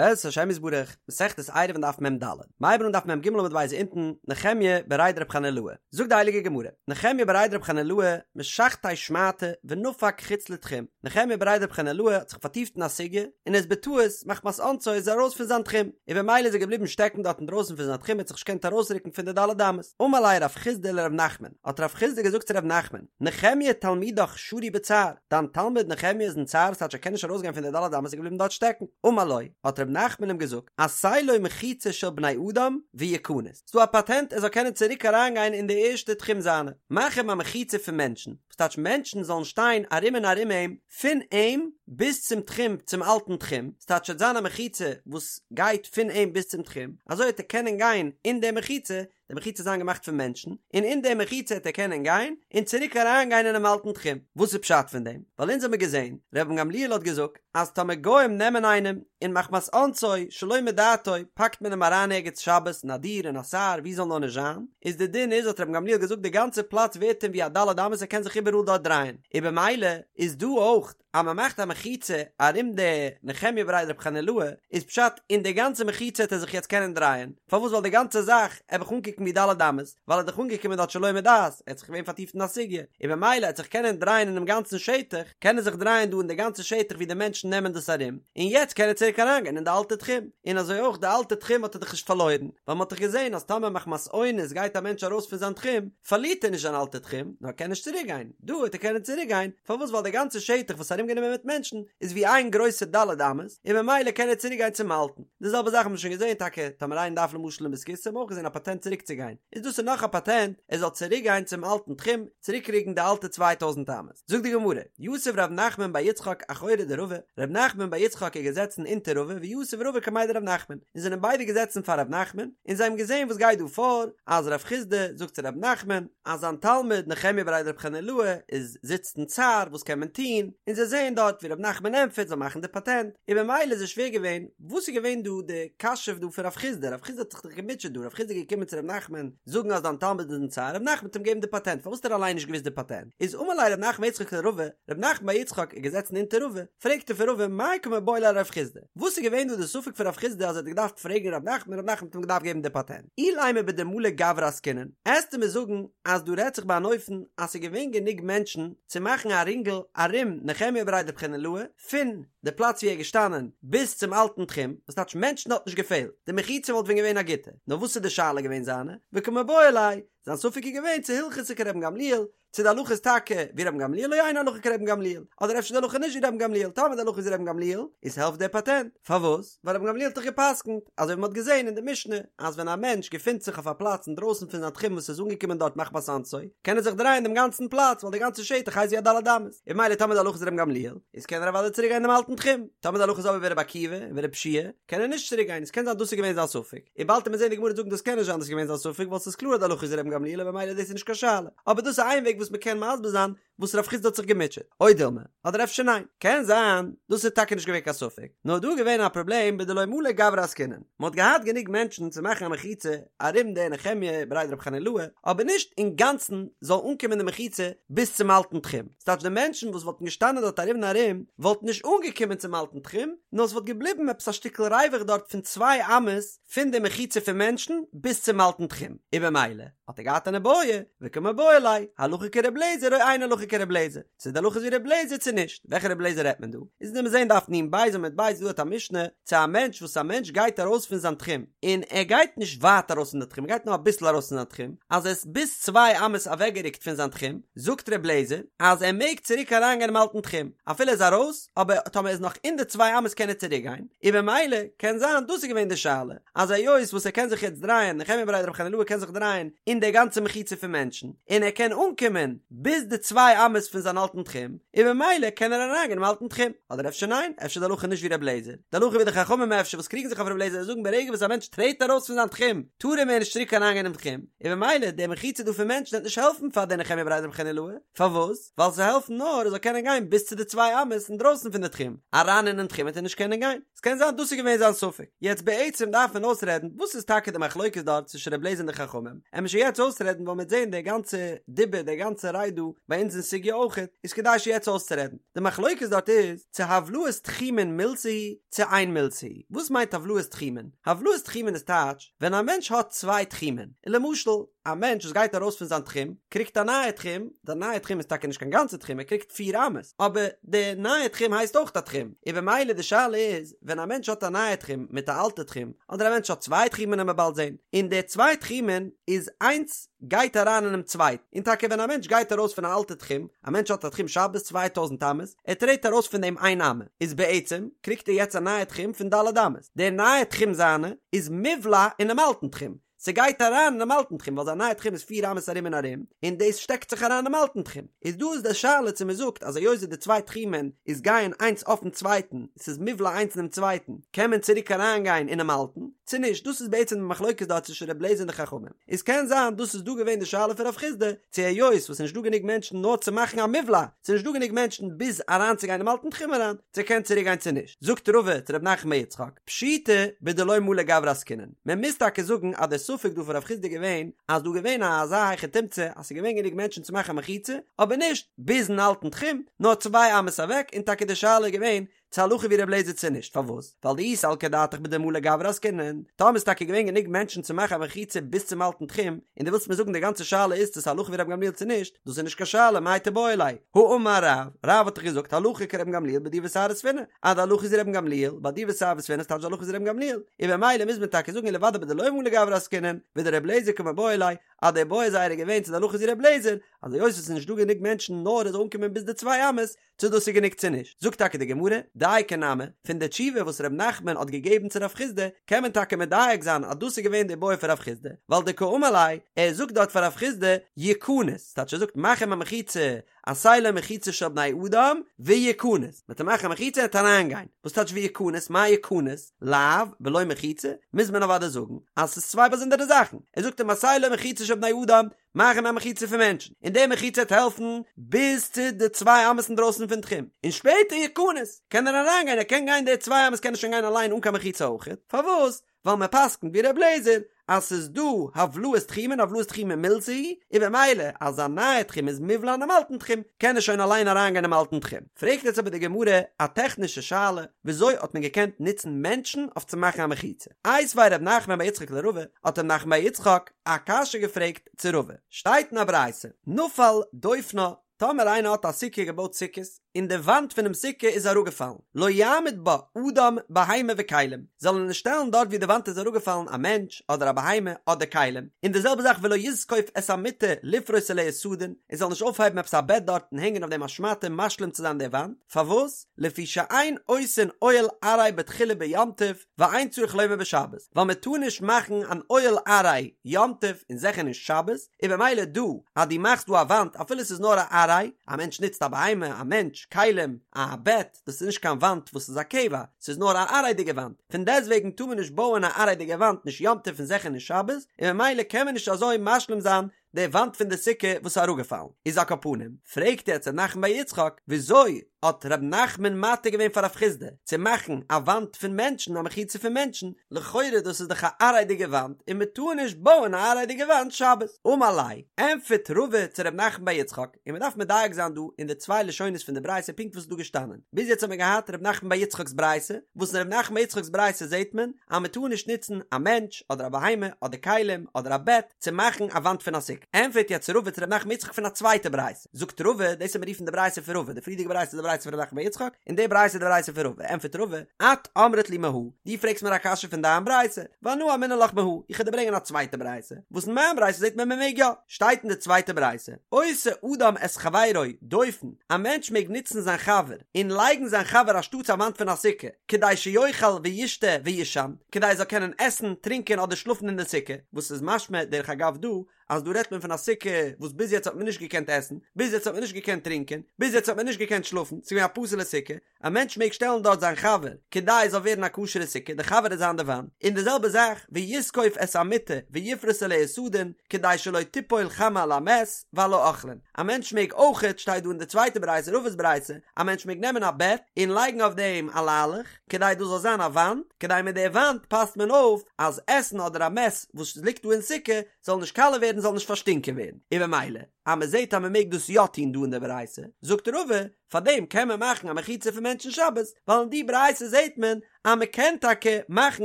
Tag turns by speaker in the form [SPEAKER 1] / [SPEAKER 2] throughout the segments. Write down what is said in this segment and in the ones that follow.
[SPEAKER 1] בעזרת השם יתברך, מסכת עירובין דף מ"ד, מ'הייבן אן דף מ"ג עמוד ב' אונטן, נחמיה בריה דרב חנילאי, זאגט די הייליגע גמרא, נחמיה בריה דרב חנילאי משכתיה שמעתא ונפק חוץ לתחום, נחמיה בריה דרב חנילאי האט זיך פארטיפט אין א סוגיא, און איז בטעות, מחמת אונסו איז ער ארויס פון זיין תחום, און במילא איז ער געבליבן שטעקן דארט אינדרויסן פון זיין תחום ער האט זיך נישט געקענט ארויסרוקן פון די ד' אמות, אמר ליה רב חסדא לרב נחמן, האט רב חסדא געזאגט צו רב נחמן, נחמיה תלמידך שרוי בצער, דיין תלמיד נחמיה איז אין צער ס'טייטש ער קען נישט ארויסגיין פון די ד' אמות איז געבליבן דארט שטעקן, אמר לו, האט ר' נחמן אים געזאגט, עשה לו מחיצה של בני אדם ויכנס, ס'דא א פאטענט ער זאל קענען צוריק אריינגיין אין די ערשטע תחום זיינע, מאך אים א מחיצה פון מענטשן, וואס טייטש מענטשן זאלן שטיין ארום און ארום אים, פון אים ביז צום תחום, צום אלטן תחום, ס'טייטש ס'וועט זיין א מחיצה וואס גייט פון אים ביז צום תחום, אזוי וועט ער קענען גיין אין די מחיצה, די מחיצה זיין געמאכט פון מענטשן, און אין די מחיצה העט ער קענען גיין, און צוריק אריין גיין אינעם אלטן תחום. וואס איז פשט פון דעם? ווייל אונז האמיר געזען, רבן גמליאל האט געזאגט, אז טאמער גוים נעמען איינעם, און מחמת אונסו, שלא מדעתו, פאקט מען אים אריין ערגעץ שבת, אין א דיר, אין א סהר, ווי זאל נאר נישט זיין, איז די דין איז, האט רבן גמליאל געזאגט, די גאנצע פלאץ ווערט אים ווי א ד' אמות ער קען זיך איבעראל דארט דרייען, און במילא איז דא אויך, אז מען מאכט א מחיצה ארום די נחמיה בריה דרב חנילאי איז פשט אין די גאנצע מחיצה העט ער זיך יעצט קענען דרייען, פארוואס ווייל די גאנצע זאך עט זיך אנקוקן ווי ד' אמות, ווייל ער איז דאך אנגעקומען דארט שלא מדעת, ער האט זיך געווען פארטיפט אין א סוגיא, און במילא עט זיך קענען דרייען אינעם גאנצן שטח, קען ער זיך דרייען דא אין די גאנצע שטח ווי די מענטשן נעמען דאס ארום, און יעצט קען ער צוריק אריינגיין אין די אלטע תחום, און אזוי אויך די אלטע תחום האט ער דאך נישט פארלוירן, ווייל מען האט דאך געזען אז טאמער מחמת אונס גייט א מענטש ארויס פון זיין תחום, פארלירט ער נישט זיין אלטע תחום, נאר ער קען נישט צוריק גיין, דא וועט ער קענען צוריק גיין, פארוואס ווייל די גאנצע שטח וואס איז ארומגענומען מיט מענטשן איז ווי איין גרויסע ד' אמות, און ממילא קען ער צוריק גיין צום אלטן, די זעלבע זאך האט מען שוין געזען טאקע טאמער איינער דארף למשל אין בית הכסא האט מען אויך געזען א פאטענט צוריק צו גיין, איז דאס איז נאך א פאטענט ער זאל צוריק גיין צום אלטן תחום, צוריק קריגן די אלטע 2000 אמות. זאגט די גמרא, יתיב ר' נחמן בר יצחק אחורי דרבא, ר' נחמן בר יצחק איז געזעצן אונטער רבא ויתיב רבא קמיה דר' נחמן, און זענען ביידע געזעצן פאר ר' נחמן, און זיי האבן געזען וואס גייט דא פאר, אז רב חסדא זאגט צו ר' נחמן, אז זיין תלמיד נחמיה בריה דרב חנילאי איז זיצט אין צער, וואס קען מען טון, און זיי זעען דארט ווי ר' נחמן ענטפערט זאל מאכן די פאטענט, און במילא איז זיי שווער געווען, וואס איז געווען דא די קשיא דא פון רב חסדא, רב חסדא האט זיך דאך געמוטשעט דא, רב חסדא איז געקומען צו ר' נחמן זאגן אז דיין תלמיד איז אין צער, ר' נחמן האט אים געגעבן די פאטענט, פארוואס האט ער אליין נישט געוואוסט די פאטענט? איז אמר ליה ר' נחמן בר יצחק לרבא, ר' נחמן בר יצחק איז געזעצן אונטער רבא, פרעגט ער פון רבא מאי קא מיבעיא ליה לרב חסדא, וואס איז געווען דא די ספק פון רב חסדא אז ער האט געדארפט פרעגן ר' נחמן, ר' נחמן האט אים געדארפט געבן די פאטענט? אילימא בדמלי גברי עסקינן, עסטו מיר זאגן אז דא רעדט זיך ביי אן אופן אז ס'איז געווען גענוג מענטשן צו מאכן א רינגל ארום נחמיה בריה דרב חנילאי, פון די פלאץ ווי ער איז געשטאנען ביז צום אלטן תחום, וואס טייטש מענטשן האט נישט געפעלט, די מחיצה וואלט ווען געווען א גוטע, נאר וואס איז די שאלה געווען זיינע, וקא מיבעיא ליה, זיין ספק איז געווען צו הלכתא כרבן גמליאל, צו די הלכה איז טאקע ווי רבן גמליאל או אין הלכה כרבן גמליאל, אדער אפשר די הלכה נישט ווי רבן גמליאל, טאמער די הלכה איז ווי רבן גמליאל, איז העלפט דער פאטענט, פארוואס? ווייל רבן גמליאל האט דאך גע'פסק'נט, אזוי ווי מען האט געזען אין די משנה, אז ווען א מענטש געפינט זיך אויף א פלאץ אינדרויסן פון זיין תחום וואס איז אנגעקומען דארט מחמת אונסו, קען ער זיך דרייען דעם גאנצן פלאץ ווייל די גאנצע שטח הייסט ווי א ד' אמות, און ממילא טאמער די הלכה איז רבן גמליאל, איז קען ער אוודאי צוריק גיין דעם אלטן תחום, טאמער די הלכה איז אבער ווי רבי עקיבא און ווי רבי יהושע קען ער נישט צוריק גיין, עס קען זיין דאס איז געווען זיין ספק, און באלד וועט מען זען די גמרא זאגן דאס קען נישט זיין דאס איז געווען זיין ספק ווייל ס'איז קלאר אז די הלכה איז רבן גמליאל און ממילא דאס איז נישט קיין שאלה, אבער דאס איז איין וועג וואס מען קען מסביר זיין וואס רב חסדא האט זיך געמוטשעט, או דילמא, אדער אפשר ניין, קען זיין דאס איז טאקע נישט געווען קיין ספק, נאר דא איז געווען א פראבלעם בדלא מלי גברי עסקינן, מען האט געהאט גענוג מענטשן צו מאכן א מחיצה ארום די נחמיה בריה דרב חנילאי, אבער נישט אינגאנצן זאל אנקומען די מחיצה ביז צום אלטן תחום, ס'טייטש די מענטשן וואס וואלטן געשטאנען דארט ארום און ארום וואלטן נישט אנגעקומען צום אלטן תחום, נאר ס'וואלט געבליבן עפעס א שטיקל ריווח דארט פון צוויי אמות פון די מחיצה פון מענטשן ביז צום אלטן תחום, און במילא האט ער געהאט אן איבעיא, וקא מיבעיא ליה, הלכה כר' אליעזר או אין הלכה כר' אליעזר, צו די הלכה איז ווי ר' אליעזר צו נישט, וועלכע ר' אליעזר רעדט מען דא? איז וועט מען זעהן דף נ"ב עמוד ב' דא האט א משנה צו א מענטש וואס א מענטש גייט ארויס פון זיין תחום און ער גייט נישט ווייט ארויס פון די תחום ער גייט נאר אביסל ארויס פון זיין תחום אז ער איז ביז צוויי אמות אוועקגערוקט פון זיין תחום זאגט ר' אליעזר אז ער מעג צוריק אריינגיין אינעם אלטן תחום אפילו ער איז ארויס אבער טאמער ער איז נאך אין די צוויי אמות קען ער צוריק גיין און במילא קען זיין דאס איז געווען די שאלה אז היות וואס ער קען זיך יעצט דרייען, נחמיה בריה דרב חנילאי קען זיך דרייען אין די גאנצע מחיצה פון מענטשן, און ער קען אנקומען ביז די צוויי אמות פון זיין אלטן תחום, און במילא קען ער אריינגיין אינעם אלטן תחום. אדער אפשר ניין, אפשר די הלכה נישט ווי ר' אליעזר, די הלכה ווי די חכמים אפשר וואס קריגן זיך אויף ר' אליעזר און זאגן ברגע וואס א מענטש טרעט ארויס פון זיין תחום טאר ער מער נישט צוריק אריינגיין אינעם תחום, און במילא די מחיצה דא פון מענטשן וועט נישט העלפן פאר די נחמיה בריה דרב חנילאי, פארוואס? ווייל ס'העלפט נאר ער זאל קענען גיין ביז צו די צוויי אמות אינדרויסן פון די תחום, אריין אינעם תחום וועט ער נישט קענען גיין. ס'קען זיין דאס איז געווען זיין ספק. יעצט בעצם דארף מען אויסרעדן וואס איז טאקע די מחלוקת דארט צווישן ר' אליעזר און די חכמים, עמער שוין יעצט אויסרעדן ווייל מ'וועט זען די גאנצע דיבור די גאנצע רייד דא ביי אונז אין סוגיא אויכעט, איז כדאי שוין יעצט אויסצורעדן. די מחלוקת דארט איז צו הבלעת תחומין מילתא היא צו אין מילתא היא. וואס מיינט הבלעת תחומין? הבלעת תחומין איז טייטש ווען א מענטש האט צוויי תחומין, און למשל א מענטש וואס גייט ארויס פון זיין תחום קריגט א נייע תחום, די נייע תחום איז טאקע נישט קיין גאנצע תחום ער קריגט פיר אמות, אבער די נייע תחום הייסט אויך א תחום, און במילא די שאלה איז ווען א מענטש האט א נייע תחום מיט א אלטע תחום, אדער א מענטש האט צוויי תחומין וועלן מיר באלד זען, און די צוויי תחומין איז איינס גייט אריין אינעם צווייטן, און טאקע ווען א מענטש גייט ארויס פון א אלטע תחום, א מענטש האט א תחום שבת 2000 אמות, ער טרעט ארויס פון דעם איין אמה, איז בעצם קריגט ער יעצט א נייע תחום פון ד' אמות, דער נייע תחום זיינע איז מובלע אינעם אלטן תחום, ס'גייט אריין אינעם אלטן תחום ווייל זיין נייע תחום איז פיר אמות ארום און ארום, און דאס שטעקט זיך אריין אינעם אלטן תחום. איז דא איז די שאלה צו מ'זאגט אז היות די צוויי תחומין איז גייען איינס אויפן צווייטן, ס'איז מובלע איינס אינעם צווייטן, קען מען צוריק אריינגיין אינעם אלטן, צו נישט, דאס איז בעצם די מחלוקת דארט צווישן ר' לעזער און די חכמים. איז קען זיין דאס איז דא געווען די שאלה פון רב חסדא, צו היות וואס ס'נישט דא גענוג מענטשן נאר צו מאכן א מובלע, ס'איז נישט דא גענוג מענטשן ביז אריינצוגיין אינעם אלטן תחום אריין, צו קען צוריק גיין צו נישט. זאגט רבא צו ר' נחמן בר יצחק, פשיטא בדלא מלי גברי עסקינן, מען מוז טאקע זאגן אז דער ספק דא פון רב חסדא איז געווען אז דא געווען א אזא היכי תמצא אז ס'איז געווען גענוג מענטשן צו מאכן א מחיצה, אבער נישט ביזן אלטן תחום, נאר צוויי אמות אוועק, און טאקע די שאלה איז געווען צו הלכה ווי ר' לעזער צו נישט, פארוואס? ווייל דאי סלקא דעתך בדמלי גברי עסקינן, טאמער איז טאקע געווען גענוג מענטשן צו מאכן א מחיצה ביז צום אלטן תחום, און דו ווילסט מיר זאגן די גאנצע שאלה איז צו ס'איז הלכה ווי רבן גמליאל צו נישט, דאס איז נישט קיין שאלה, מאי תיבעי ליה, האמר רב, רב האט דאך געזאגט הלכה כרבן גמליאל בדיר וסהר וספינה, אז די הלכה איז ווי רבן גמליאל, ביי דיר וסהר וספינה ס'טייטש די הלכה איז ווי רבן גמליאל, און במילא מוז מען טאקע זאגן אלא ודאי בדלא מלי גברי עסקינן, ודר' לעזער קמיבעיא ליה, אז די בעיא זייערע איז געווען צו די הלכה איז ווי ר' לעזער, אז היות עס איז נישט דא גענוג מענטשן נאר עס זאל אנקומען ביז די צוויי אמות, צו דאס איז גענוג צו נישט, זאגט טאקע די גמרא, דייקא נמי, פון די תשובה וואס ר' נחמן האט געגעבן צו רב חסדא, קען מען טאקע מדייק זיין אז דאס איז געווען די בעיא פון רב חסדא, ווייל דקאמר ליה, ער זאגט דארט פאר רב חסדא, יכנס, ס'טייטש ער זאגט מאך אים א מחיצה, עשה לו מחיצה של בני אדם, ויכנס, מ'וועט אים מאכן א מחיצה ער וועט אריינגיין, וואס טייטש ויכנס, מאי יכנס, לאו, בלא מחיצה, מוז מען אוודאי זאגן אז ס'איז צוויי באזונדערע זאכן, ער זאגט אים עשה לו מחיצה של בני אדם, מאך אים א מחיצה פון מענטשן, און די מחיצה וועט העלפן ביז צו די צוויי אמות אינדרויסן פון תחום, און שפעטער יכנס, קען ער אריינגיין, ער קען גיין די צוויי אמות קען ער שוין גיין אליין אן קיין מחיצה אויכעט, פארוואס? ווייל מען פסק'נט ווי ר' לעזער אז ס'איז דא הבלעת תחומין הבלעת תחומין מילתא היא, און במילא אז א נייע תחום איז מובלע אינעם אלטן תחום, קען ער שוין אליין אריינגיין אינעם אלטן תחום. פרעגט יעצט אבער די גמרא א טעכנישע שאלה, וויאזוי האט מען געקענט נוצן מענטשן אויף צו מאכן א מחיצה? איתיביה ר' נחמן בר יצחק לרבא, האט ר' נחמן בר יצחק א קשיא געפרעגט צו רבא, שטייט אין א ברייתא, נפל דופנה, טאמער איינער האט א סוכה געבויט סוכות, און די וואנט פונעם סוכה איז אראפגעפאלן, לא יעמיד בה אדם בהמה וכלים, זאל ער נישט שטעלן דארט ווי די וואנט איז אראפגעפאלן א מענטש אדער א בהמה אדער כלים, און די זעלבע זאך ולא יזקוף את המיטה לפרוס עליה סדין, ער זאל נישט אויפהייבן עפעס א בעט דארט און הענגען אויף דעם א שמאטע משלים צו זיין די וואנט, פארוואס? לפי שאין עושין אוהל עראי בתחילה ביום טוב, ואין צריך לומר בשבת, ווייל מען טאר נישט מאכן אן אוהל עראי יום טוב און זיכער נישט שבת, און במילא דא אז דו מאכסט דא א וואנט אפילו ס'איז נאר א עראי, א מענטש נוצט א בהמה, א מענטש, כלים, א בעט, דאס איז נישט קיין וואנט וואס איז א קבע, ס'איז נאר א עראי'דיגע וואנט, פון דעסטוועגן טאר מען נישט בויען א עראי'דיגע וואנט נישט יום טוב און זיכער נישט שבת, און במילא קען מען נישט אזוי משלים זיין די וואנט פון די סוכה וואס איז אראפגעפאלן איז על כל פנים, פרעגט יעצט ר' נחמן בר יצחק, וויאזוי האט ר' נחמן מתיר געווען פאר רב חסדא צו מאכן א וואנט פון מענטשן א מחיצה פון מענטשן, לכאורה דאס איז דאך א עראי'דיגע וואנט און מען טאר נישט בויען א עראי'דיגע וואנט שבת. אמר ליה, ענטפערט רבא צו ר' נחמן בר יצחק, און מען דארף מדייק זיין דא אין די צוויי לשונות פון די ברייתא פונקט וואס איז דא געשטאנען, ביז יעצט האט מען געהאט ר' נחמן בר יצחק'ס ברייתא, וואס אין ר' נחמן בר יצחק'ס ברייתא זעט מען אז מען טאר נישט נוצן א מענטש אדער א בהמה אדער כלים אדער א בעט צו מאכן א וואנט פון א סוכה. ענטפערט יעצט רבא צו ר' נחמן בר יצחק פון א צווייטע ברייתא, זאגט רבא, דאס וועט מען רופן די ברייתא פון רבא, די פריערדיגע ברייתא איז די ברייתא פון ר' נחמן בר יצחק, און די ברייתא איז די ברייתא פון רבא, ענטפערט רבא, את אמרת לי מהא, דו פרעגסט מיר א קשיא פון דיין ברייתא, ואנא אמינא לך מהא, איך וועל דיר ברענגען א צווייטע ברייתא, וואס אין מיין ברייתא זעט מען מען מעג יא. שטייט אין די צווייטע ברייתא, עושה אדם את חברו דופן, א מענטש מעג נוצן זיין חבר און לייגן זיין חבר אנשטאטס א וואנט פון א סוכה, כדי שיאכל וישתה ויישן, כדי ער זאל קענען עסן, טרינקען אדער שלאפן אין די סוכה, וואס איז משמע דרך אגב דא, אז דא רעדט מען פון א סוכה וואס ביז יעצט האט מען נישט געקענט עסן, ביז יעצט האט מען נישט געקענט טרינקען, ביז יעצט האט מען נישט געקענט שלאפן, ס'איז געווען א פסול'ע סוכה, א מענטש מעג שטעלן דארט זיין חבר כדי עס זאל ווערן א כשר'ע סוכה, די חבר וועט זיין די וואנט, און די זעלבע זאך ויזקוף את המיטה ויפרוס עליה סדין כדי שלא תיפול חמה על המת ועל האוכלין, א מענטש מעג אויכעט, שטייט דא אין די צווייטע ברייתא, רבא'ס ברייתא, א מענטש מעג נעמען א בעט און לייגן אויף דעם א ליילעך, כדי דאס זאל זיין א וואנט, כדי מיט די וואנט פאסט מען אויף אז עסן אדער א מת וואס ליגט דא אין סוכה זאל נישט קאלע ווערן זאל נישט פארשטינקען ווערן, און במילא. אז מען זעט אז מען מעג דאס יא טון דא אין די ברייתא, זאגט רבא, פארדעם קען מען מאכן א מחיצה פון מענטשן שבת, ווייל אין די ברייתא זעט מען אז מען קען טאקע מאכן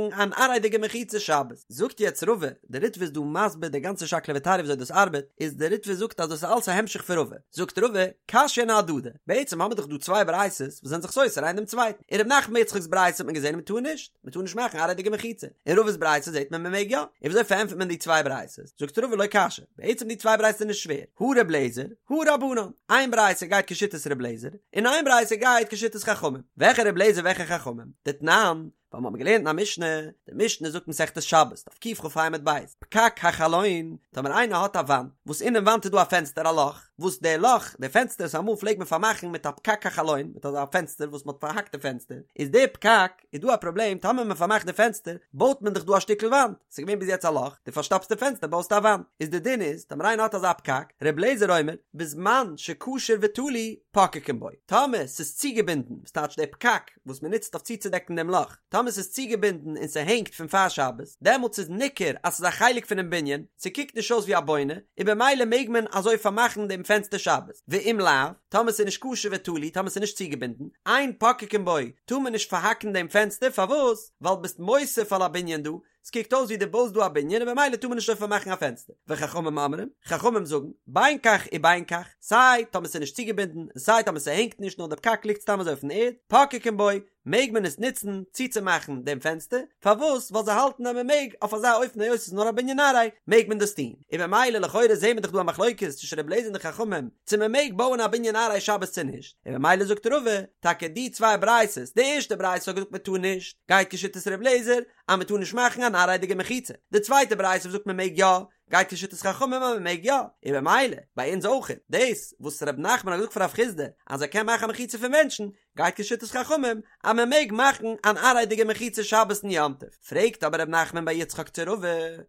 [SPEAKER 1] אן עראי'דיגע מחיצה שבת. זאגט יעצט רבא, די ריטב"א איז דא מסביר די גאנצע שקלא וטריא וויאזוי דאס ארבעט, איז די ריטב"א זאגט אז דאס איז אלס א המשך פון רבא, זאגט רבא, קשיין אהדדי, בעצם האמיר דאך דא צוויי ברייתות וואס זענען זיך סותר איינער דעם צווייטן, אין ר' נחמן בר יצחק'ס ברייתא האט מען געזען אז מען טאר נישט, מען טאר נישט מאכן עראי'דיגע מחיצה, אין רבא'ס ברייתא זעט מען מען מעג יא, און וויאזוי פארענטפערט מען די צוויי ברייתות? זאגט רבא לא קשיא, בעצם די צוויי ברייתות איז נישט שווער, הא ר' לעזער, הא רבנן, איין ברייתא גייט כשיטת ר' לעזער, און איין ברייתא גייט כשיטת חכמים, וועלכע ר' לעזער וועלכע חכמים? דתנן, ווייל מ'האט געלערנט אין א משנה, די משנה זאגט מסכת שבת, דף קכ"ה עמוד ב', פקק החלון, טאמער איינער האט א וואנט, וואס אינעם וואנט איז דא א פענסטער א לאך, וואס די לאך, די פענסטער וואס אמאל פלעגט מען פארמאכן מיט א פקק החלון, מיט אזא פענסטער וואס מ'האט פארהאקט די פענסטער, איז די פקק, איז דא א פראבלעם, טאמער מ'פארמאכט די פענסטער, בויט מען דאך דא א שטיקל וואנט, ס'איז געווען ביז יעצט א לאך, דו פארשטאפסט די פענסטער בויסטו א וואנט, איז די דין איז, טאמער איינער האט אזא פקק, ר' אליעזר אומר, בזמן שקשור ותלוי, פוקקין בו, טאמער ס'איז צוגעבינדן, וואס טייטש די פקק, וואס מען נוצט אויף צוצודעקן דעם לאך, טאמער ס'איז צוגעבינדן און ס'הענגט פון פאר שבת, דעמאלטס איז ניכר אז ס'איז א חלק פונעם בנין, ס'קוקט נישט אויס ווי א בונה, און במילא מעג מען אזוי פארמאכן דעם פענסטער שבת, ואם לאו, טאמער ס'איז נישט קשור ותלוי, טאמער ס'איז נישט צוגעבינדן, אין פוקקין בו, טאר מען נישט פארהאקן דעם פענסטער, פארוואס? ווייל ביסט מוסיף על הבנין דא, ס'קוקט אויס ווי דו בויסט דא א בנין און במילא טאר מען נישט אזוי פארמאכן א פענסטער. וחכמים אומרים, חכמים זאגן, בין כך ובין כך, סיי טאמער ס'איז נישט צוגעבינדן און סיי טאמער ס'הענגט נישט נאר די פקק ליגט סתם אזוי אויפן ערד, פוקקין בו, מעג מען עס נוצן צוצומאכן דעם פענסטער, פארוואס? ווייל זיי האלטן אז מען מעג אויף אזא אופן היות ס'איז נאר א בנין עראי מעג מען דאס טון. און במילא לכאורה זעהן מיר דאך דא א מחלוקת צווישן רבי אליעזר און די חכמים צו מען מעג בויען א בנין עראי שבת צו נישט, און במילא זאגט רבא, טאקע די צוויי ברייתות, די ערשטע ברייתא האט געזאגט מען טאר נישט, גייט כשיטת רבי אליעזר, אז מען טאר נישט מאכן אן עראי'דיגע מחיצה, די צווייטע ברייתא וואס זאגט מען מעג יא, גייט כשיטת חכמים אז מען מעג יא, און במילא ביי אונז אויך, דאס וואס ר' נחמן האט געזאגט פאר רב חסדא אז ער קען מאכן א מחיצה פון מענטשן, גייט כשיטת חכמים אז מען מעג מאכן אן עראי'דיגע מחיצה שבת און יום טוב, פרעגט אבער ר' נחמן בר יצחק צו רבא,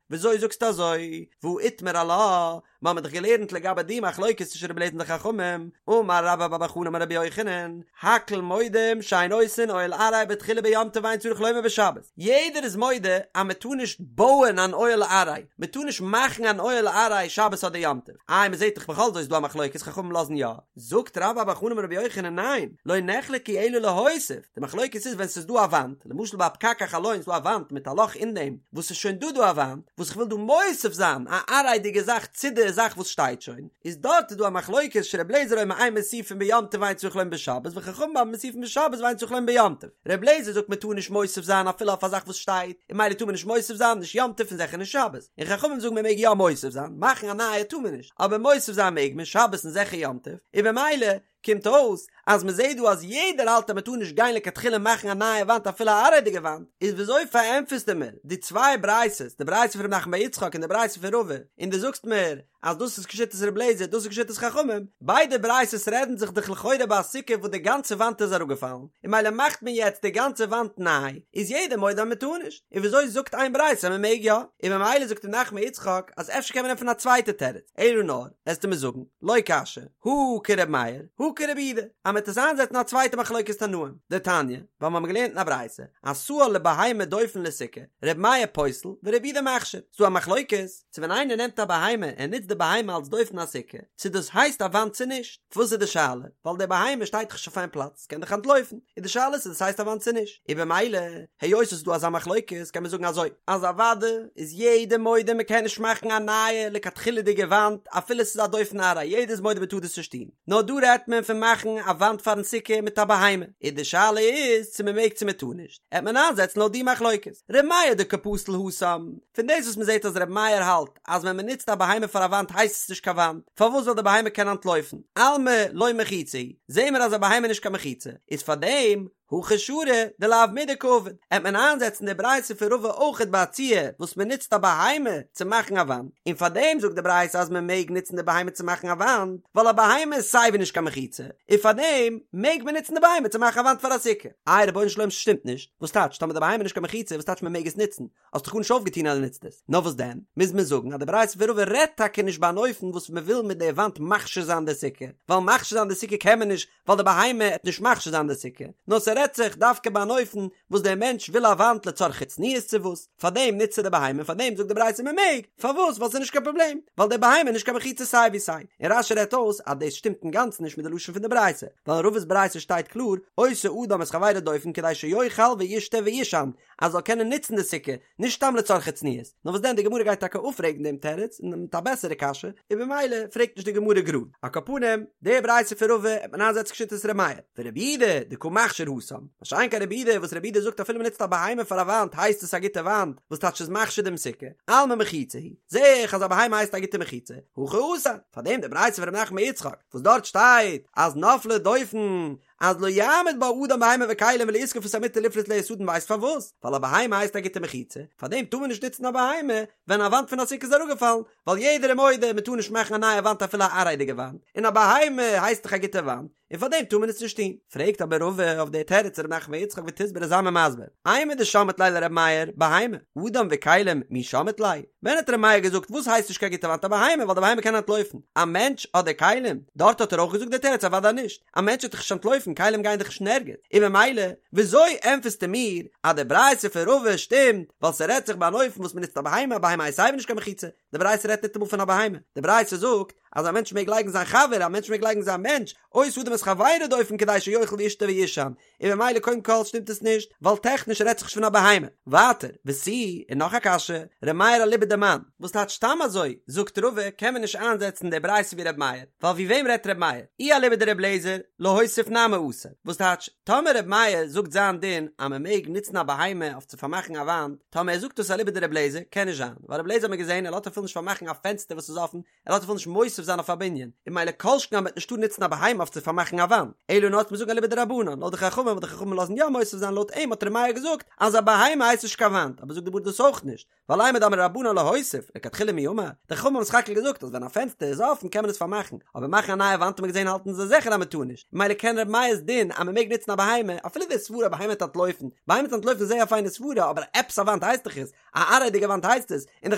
[SPEAKER 1] וויאזוי זאגסטו אזוי, והא איתמר עלה, מיר האבן דאך געלערנט לגבי די מחלוקת צווישן רבי אליעזר און די חכמים, אמר רבה בר בר חנה אמר רבי יוחנן, הכל מודים שאין עושין אוהל עראי בתחילה ביום טוב ואין צריך לומר בשבת, יעדער איז מודה אז מען טאר נישט בויען אן אוהל עראי, מען טאר נישט מאכן אן אוהל עראי שבת אדער יום טוב, איי מען זעט דאך בכל זאת איז דא א מחלוקת חכמים לאזן יא, זאגט רבה בר בר חנה אמר רבי יוחנן ניין, לא נחלקו אלא להוסיף, די מחלוקת איז ווען ס'איז דא א וואנט, למשל ביי א פקק החלון איז דא א וואנט מיט א לאך אין דעם, וואס ס'איז שוין דא דא א וואנט, וואס איך וויל דא מוסיף זיין א עראי'דיגע זאך צו די זאך וואס שטייט שוין, איז דארט איז דא א מחלוקת שר' אליעזר אומר אין מוסיפין ביום טוב ואין צריך לומר בשבת וחכמים אומרים מוסיפין בשבת ואין צריך לומר ביום טוב, ר' אליעזר זאגט מען טאר נישט מוסיף זיין אפילו אויף א זאך וואס שטייט, און ממילא טאר מען נישט מוסיף זיין נישט יום טוב און זיכער נישט שבת, און חכמים זאגן מען מעג יא מוסיף זיין, מאכן א נייע טאר מען נישט, אבער מוסיף זיין מעג מען שבת און זיכער יום טוב, און במילא קומט אויס אז מען זעט דא אז יעדער האלט אז מען טאר נישט גיין לכתחילה מאכן א נייע וואנט אפילו א עראי'דיגע וואנט, איז וויאזוי פארענטפערסטו מיר די צוויי ברייתות, די ברייתא פון ר' נחמן בר יצחק און די ברייתא פון רבא, און דו זאגסט מיר אז דאס איז כשיטת ר' אליעזר דאס איז כשיטת חכמים, ביידע ברייתות רעדן זיך דאך לכאורה ביי א סוכה וואס די גאנצע וואנט איז אראפגעפאלן, און ממילא מאכט מען יעצט די גאנצע וואנט ניי, איז יעדער מודה אז מען טאר נישט, און וויאזוי זאגט איין ברייתא אז מען מעג יא? און ממילא זאגט ר' נחמן בר יצחק אז אפשר קען מען ענטפערן א צווייטע תירוץ, אלא נאר, עסטו מיר זאגן, לא קשיא, הא כר' מאיר, הא כר' יהודה, אז מ'עט עס איינזעצן א צווייטע מחלוקת תנאים, דתניא, ווייל מ'האמיר געלערנט אין א ברייתא, עשאה לבהמה דופן לסוכה, ר' מאיר פוסל ור' יהודה מכשיר, ס'דא א מחלוקת, צו ווען איינער נעמט א בהמה און נוצט די בהמה אלס דופן א סוכה, צו דאס הייסט א וואנט צו נישט, וואס איז די שאלה? ווייל די בהמה שטייט דאך נישט אויף איין פלאץ, ס'קען דאך אנטלויפן, איז די שאלה צו דאס הייסט א וואנט צו נישט, און במילא, היות עס איז דא אזא מחלוקת, קען מען זאגן אזוי, אז אוואדע איז יעדער מודה מען קען נישט מאכן א נייע לכתחילה'דיגע וואנט אפילו עס איז א דופן עראי, יעדער איז מודה מען טאר דאס נישט טון, נאר דא רעדט מען פון מאכן א וואנט פארן סוכה מיט א בהמה, און די שאלה איז צו מען מעג צו מען טאר נישט, עט מען איינזעצן לויט די מחלוקת, ר' מאיר דקא פסיל התם, פון דאס וואס מען זעט אז ר' מאיר האלט אז ווען מען נוצט א בהמה פאר א וואנט הייסט עס נישט קיין וואנט, פארוואס ווייל די בהמה קען אנטלויפן, אלמא לא מחיצה היא, זעהן מיר אז א בהמה איז נישט קיין מחיצה, איז פארדעם הכא שרי דלאו מידי קעביד, עט מען איינזעצן די ברייתא פון רבא אויכעט ביי א ציור וואס מען נוצט א בהמה צו מאכן א וואנט, און פארדעם זאגט די ברייתא אז מען מעג נוצן די בהמה צו מאכן א וואנט, ווייל א בהמה איז סייווי נישט קיין מחיצה, און פארדעם מעג מען נוצן די בהמה צו מאכן א וואנט פאר א סוכה. איי רבונו של עולם ס'שטימט נישט, וואס טייטש טאמער די בהמה איז נישט קיין מחיצה וואס טייטש מען מעג עס נוצן? האסט דאך גארנישט אויפגעטון אז דו נוצט עס. נאר וואס דען, מוז מען זאגן אז די ברייתא פון רבא רעדט טאקע נישט ביי אן אופן וואס מען וויל מיט די וואנט מכשיר זיין די סוכה, ווייל מכשיר זיין די סוכה קען מען נישט ווייל די בהמה עט נישט מכשיר זיין די סוכה, נאר ס'רעדט. ס'רעדט זיך דווקא ביי אן אופן וואס דער מענטש וויל א וואנט לצרכי צניעות צו וואס, פארדעם נוצט ער די בהמה און פארדעם זאגט די ברייתא מען מעג, פארוואס? ווייל ס'איז נישט קיין פראבלעם, ווייל די בהמה איז נישט קיין מחיצה סיי ווי סיי, און רש"י רעדט אויס אז דאס שטימט אינגאנצן נישט מיט די לשון פון די ברייתא, ווייל אין רבא'ס ברייתא שטייט קלאר, עושה אדם את חברו דופן כדי שיאכל וישתה וישן, אז זאל קענען נוצן די סוכה, נישט סתם לצרכי צניעות, נאר וואס דען די גמרא גייט טאקע אפפרעגן דעם תירוץ און מיט א בעסערע קשיא, און במילא פרעגט נישט די גמרא גראד. על כל פנים, די ברייתא פון רבא העט מען איינזעצן כשיטת ר' מאיר, ורבי יהודה דקא מכשיר התם, מה שאין כן רבי יהודה וואס רבי יהודה זאגט אפילו מען נוצט א בהמה פאר א וואנט הייסט עס א גוטע וואנט, וואס טייטש ס'איז מכשיר דעם סוכה, אלמא מחיצה היא, זעה איך אז א בהמה הייסט א גוטע מחיצה, הכא אסר, פארדעם די ברייתא פון ר' נחמן בר יצחק וואס דארט שטייט אז נפלה דופן אז לא יעמיד בה אדם בהמה וכלים ולא יזקוף את המטה לפרוס עליה סדין ווייסט פארוואס? ווייל א בהמה הייסט א גוטע מחיצה, פארדעם טאר מען נישט נוצן א בהמה ווען א וואנט פון א סוכה איז אראפגעפאלן, ווייל יעדער איז מודה מען טאר נישט מאכן א נייע וואנט אפילו א עראי'דיגע וואנט, און א בהמה הייסט דאך א גוטע וואנט, און פארדעם טאר מען עס נישט טון. פרעגט אבער רבא אויף די תירוץ ר' נחמן בר יצחק ותסברא זיי מיר מסביר, אימר דשמעת ליה לר' מאיר, בהמה, אדם וכלים מי שמעת ליה? ווען האט ר' מאיר געזאגט וואס הייסט נישט קיין גוטע וואנט א בהמה ווייל די בהמה קען אנטלויפן, א מענטש אדער כלים? דארט האט ער אויך געזאגט די תירוץ אוודאי נישט, א מענטש וועט דאך נישט אנטלויפן כלים גייען דאך נישט אין ערגעץ, און ממילא וויאזוי ענטפערסטו מיר אז די ברייתא פון רבא שטימט ווייל ס'רעדט זיך ביי אן אופן וואס מ'נוצט א בהמה, א בהמה הייסט סייווי נישט קיין מחיצה, די ברייתא רעדט ניטאמאל פון א בהמה, די ברייתא זאגט אז א מענטש מעג לייגן זיין חבר, א מענטש מעג לייגן זיין מענטש, עושה אדם את חברו דופן כדי שיאכל וישתה וישן, און ממילא קודם כל שטימט עס נישט, ווייל טעכניש רעדט זיך נישט פון א בהמה. ווייטער, ותו, און נאך א קשיא, ר' מאיר אליבא דמאן, וואס טייטש סתם אזוי, זאגט רבא, קען מען נישט איינזעצן די ברייתא ווי ר' מאיר, ווייל ווי וועם רעדט ר' מאיר? אי אליבא דר' אליעזר, להוסיף נמי אסור. וואס טייטש, טאמער ר' מאיר זאגט זיין דין אז מען מעג נוצן א בהמה אויף צו פארמאכן א וואנט, טאמער ער זאגט דאס אליבא דר' אליעזר, קען נישט זיין, ווייל ר' אליעזר האט מען געזען ער לאזט אפילו נישט פארמאכן א פענסטער וואס איז אפן, ער לאזט אפילו נישט מוסיף זיין אויף א בנין, און ממילא כל שכן אז מ'וועט נישט טארן נוצן א בהמה אויף צו פארמאכן א וואנט, אלא נאר מ'זאגן אליבא דרבנן, לויט די חכמים וואס די חכמים לאזן יא מוסיף זיין לויט אים האט ר' מאיר געזאגט אז א בהמה הייסט נישט קיין וואנט, אבער זאגט די גמרא דאס אויך נישט, ווייל אימר דאמרי רבנן להוסיף, לכתחילה מי אמר, די חכמים האבן סך הכל געזאגט אז ווען א פענסטער איז אפן קען מען עס פארמאכן, אבער מאכן א נייע וואנט האט מען געזען האלטן זיי זיכער אז מ'טאר נישט, ממילא קען ר' מאיר'ס דין אז מ'מעג נוצן א בהמה, אפילו די סברה א בהמה וועט אנטלויפן, בהמה וועט אנטלויפן איז זייער א פיינע סברה, אבער עפעס א וואנט הייסט דאך עס, א עראי'דיגע וואנט הייסט עס, און די